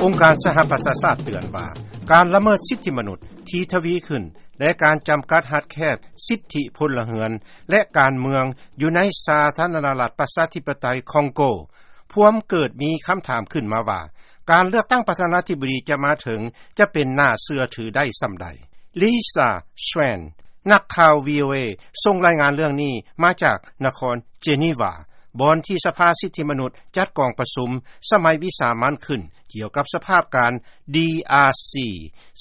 ອົງການສະຫະປະຊາຊາດເຕືອນວ່າ ການລະເມີດສິດທິມະນຸດທີ່ທະວີຂຶ້ນ ແລະ ການຈຳກັດຮັດແຄບສິດທິພົນລະເຮືອນ ແລະ ການເມືອງຢູ່ໃນສາທາລະນະລັດປະຊາທິປະໄຕຄອງໂກ ພວມເກີດມີຄຳຖາມຂຶ້ນມາວ່າ ການເລືອກຕັ້ງປະທານາທິບໍດີຈະມາເຖິງ ຈະເປັນໜ້າເຊື່ອຖືໄດ້ສ່ຳໃດ. Lisa Schwein ນັກຂ່າວ VOA ສົ່ງລາຍງານເລື່ອງນີ້ມາຈາກນະຄອນ Geneva ບ່ອນທີ່ສະພາສິດທິມະນຸດຈັດກອງປະຊຸມສະໄໝວິສາມັນຂຶ້ນ ກ່ຽວກັບສະພາບການ DRC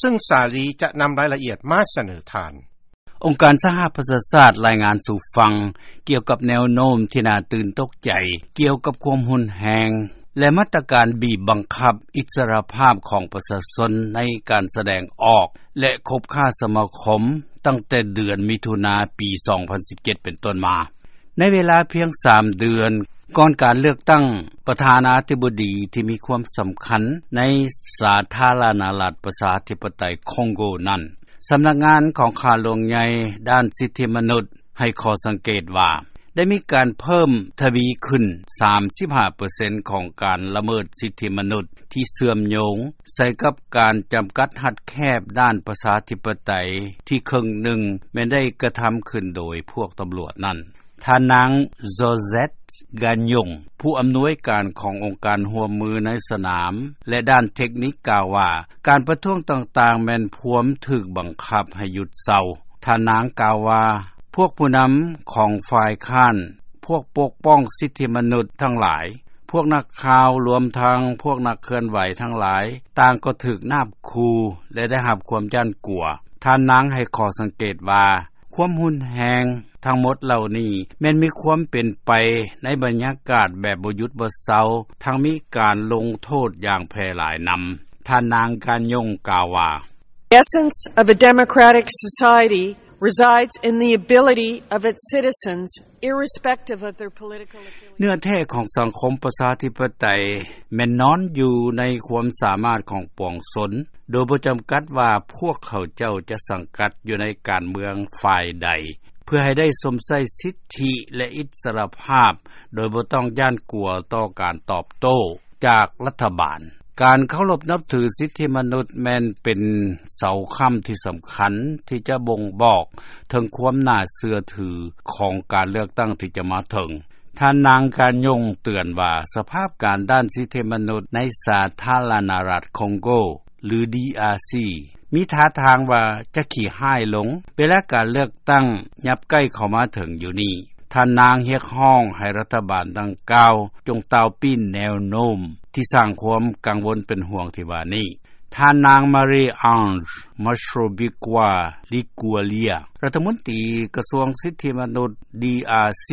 ຊຶ່ງສາລີຈະນຳລາຍລະອຽດມາສະເໜີທ່ານ. ອົງການສະຫະປະຊາຊາດລາຍງານສູ່ຟັງ ກ່ຽວກັບແນວໂນ້ມທີ່ໜ້າຕື່ນຕົກໃຈ ກ່ຽວກັບຄວາມຮຸນແຮງ ແລະ ມາດຕະການບີບບັງຄັບອິດສະຫຼະພາບຂອງປະຊາຊົນໃນການສະແດງອອກ ແລະ ຄົບຄ້າສະມາຄົມ ຕັ້ງແຕ່ເດືອນມິຖຸນາ ປີສອງພັນສິບເຈັດ ເປັນຕົ້ນມາ. ໃນເວລາພຽງສາມເດືອນ ກ່ອນການເລືອກຕັ້ງປະທານາທິບໍດີທີ່ມີຄວາມສຳຄັນໃນສາທາລະນະລັດປະຊາທິປະໄຕຄອງໂກນັ້ນ, ສຳນັກງານຂອງຂ້າຫຼວງໃຫຍ່ດ້ານສິດທິມະນຸດໃຫ້ຂໍ້ສັງເກດວ່າ ໄດ້ມີການເພີ່ມທະວີຂຶ້ນສາມສິບຫ້າເປີເຊັນຂອງການລະເມີດສິດທິມະນຸດທີ່ເຊື່ອມໂຍງໃສ່ກັບການຈຳກັດຮັດແຄບດ້ານປະຊາທິປະໄຕທີ່ເຄິ່ງໜຶ່ງແມ່ນໄດ້ກະທຳຂຶ້ນໂດຍພວກຕຳຫຼວດນັ້ນ. ທ່ານນາງ Josette Gagnon ຜູ້ອຳນວຍການຂອງອົງການຮ່ວມມືໃນສະໜາມ ແລະ ດ້ານເທັກນິກກ່າວວ່າ ການປະທ້ວງຕ່າງໆແມ່ນພວມຖືກບັງຄັບໃຫ້ຢຸດເຊົາ. ທ່ານນາງກ່າວວ່າ ພວກຜູ້ນຳຂອງຝ່າຍຄ້ານ, ພວກປົກປ້ອງສິດທິມະນຸດທັງຫຼາຍ, ພວກນັກຂ່າວ, ລວມທັງພວກນັກເຄື່ອນໄຫວທັງຫຼາຍ, ຕ່າງກໍຖືກນາບຂູ່ ແລະ ໄດ້ຮັບຄວາມຢ້ານກົວ. ທ່ານນາງໃຫ້ຂໍ້ສັງເກດວ່າ ຄວາມຮຸນແຮງທັງໝົດເຫຼົ່ານີ້ ແມ່ນມີຄວາມເປັນໄປໃນບັນຍາກາດແບບບໍ່ຢຸດບໍ່ເຊົາ, ທັງມີການລົງໂທດຢ່າງແຜ່ຫຼາຍນຳ. ທ່ານນາງ Gagnon ກ່າວວ່າ The essence of a democratic society resides in the ability of its citizens, irrespective of their political affiliation. ເນື້ອແທ້ຂອງສັງຄົມປະຊາທິປະໄຕແມ່ນນອນຢູ່ໃນຄວາມສາມາດຂອງປວງຊົນ, ໂດຍບໍ່ຈຳກັດວ່າພວກເຂົາເຈົ້າຈະສັງກັດຢູ່ໃນການເມືອງຝ່າຍໃດ, ເພື່ອໃຫ້ໄດ້ຊົມໃຊ້ສິດທິ ແລະ ອິດສະຫຼະພາບ ໂດຍບໍ່ຕ້ອງຢ້ານກົວຕໍ່ການຕອບໂຕ້ຈາກລັດຖະບານ. ການເຄົາລົບນັບຖືສິດທິມະນຸດແມ່ນເປັນເສົາຄ້ຳທີ່ສຳຄັນທີ່ຈະບົ່ງບອກເຖິງຄວາມໜ້າເຊື່ອຖືຂອງການເລືອກຕັ້ງທີ່ຈະມາເຖິງ. ທ່ານນາງ Gagnon ເຕືອນວ່າ ສະພາບການດ້ານສິດທິມະນຸດໃນສາທາລະນະລັດຄອງໂກ ຫຼື DRC ມີທ່າທາງວ່າຈະຂີ້ຮ້າຍລົງ ເວລາການເລືອກຕັ້ງຍັບໃກ້ເຂົ້າມາເຖິງຢູ່ນີ້. ທ່ານນາງຮຽກຮ້ອງໃຫ້ລັດຖະບານດັ່ງກ່າວ ຈົ່ງຕາວປີ້ນແນວໂນ້ມທີ່ສ້າງຄວາມກັງວົນເປັນຫ່ວງທີ່ວ່ານີ້. ທ່ານນາງ Marie-Ange Mastrobucco Liguglia ລັດຖະມົນຕີກະຊວງສິດທິມະນຸດ DRC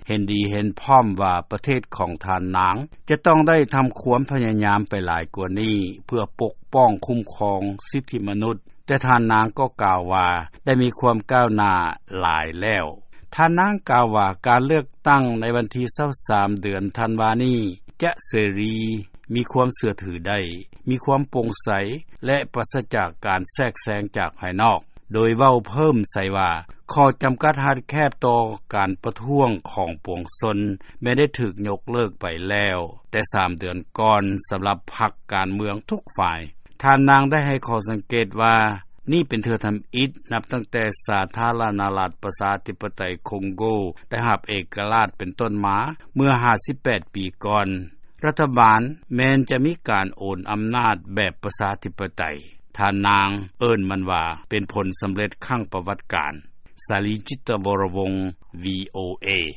ເຫັນດີເຫັນພ້ອມວ່າປະເທດຂອງທ່ານນາງຈະຕ້ອງໄດ້ທຳຄວາມພະຍາຍາມໄປຫຼາຍກວ່ານີ້ ເພື່ອປົກປ້ອງຄຸ້ມຄອງສິດທິມະນຸດ, ແຕ່ທ່ານນາງກໍກ່າວວ່າໄດ້ມີຄວາມກ້າວໜ້າຫຼາຍແລ້ວ. ທ່ານນາງກ່າວວ່າ ການເລືອກຕັ້ງໃນວັນທີຊາວສາມ ເດືອນທັນວານີ້ ຈະເສລີ, ມີຄວາມເຊື່ອຖືໄດ້, ມີຄວາມໂປ່ງໃສ ແລະ ປາສະຈາກການແຊກແຊງຈາກພາຍນອກ, ໂດຍເວົ້າເພີ່ມໃສ່ວ່າ ຂໍ້ຈຳກັດຮັດແຄບຕໍ່ການປະທ້ວງຂອງປວງຊົນແມ່ນໄດ້ຖືກຍົກເລີກໄປແລ້ວແຕ່ສາມເດືອນກ່ອນ ສຳລັບພັກການເມືອງທຸກຝ່າຍ. ທ່ານນາງໄດ້ໃຫ້ຂໍ້ສັງເກດວ່າ ນີ້ເປັນເທື່ອທຳອິດນັບຕັ້ງແຕ່ສາທາລະນະລັດປະຊາທິປະໄຕຄອງໂກໄດ້ຮັບເອກະລາດເປັນຕົ້ນມາເມື່ອຫ້າສິບແປດປີກ່ອນ. ລັດຖະບານແມ່ນຈະມີການໂອນອຳນາດແບບປະຊາທິປະໄຕ. ທ່ານນາງເອີ້ນມັນວ່າເປັນຜົນສຳເລັດຄັ້ງປະຫວັດການ. ສາລີ ຈິດຕະວໍລະວົງ VOA.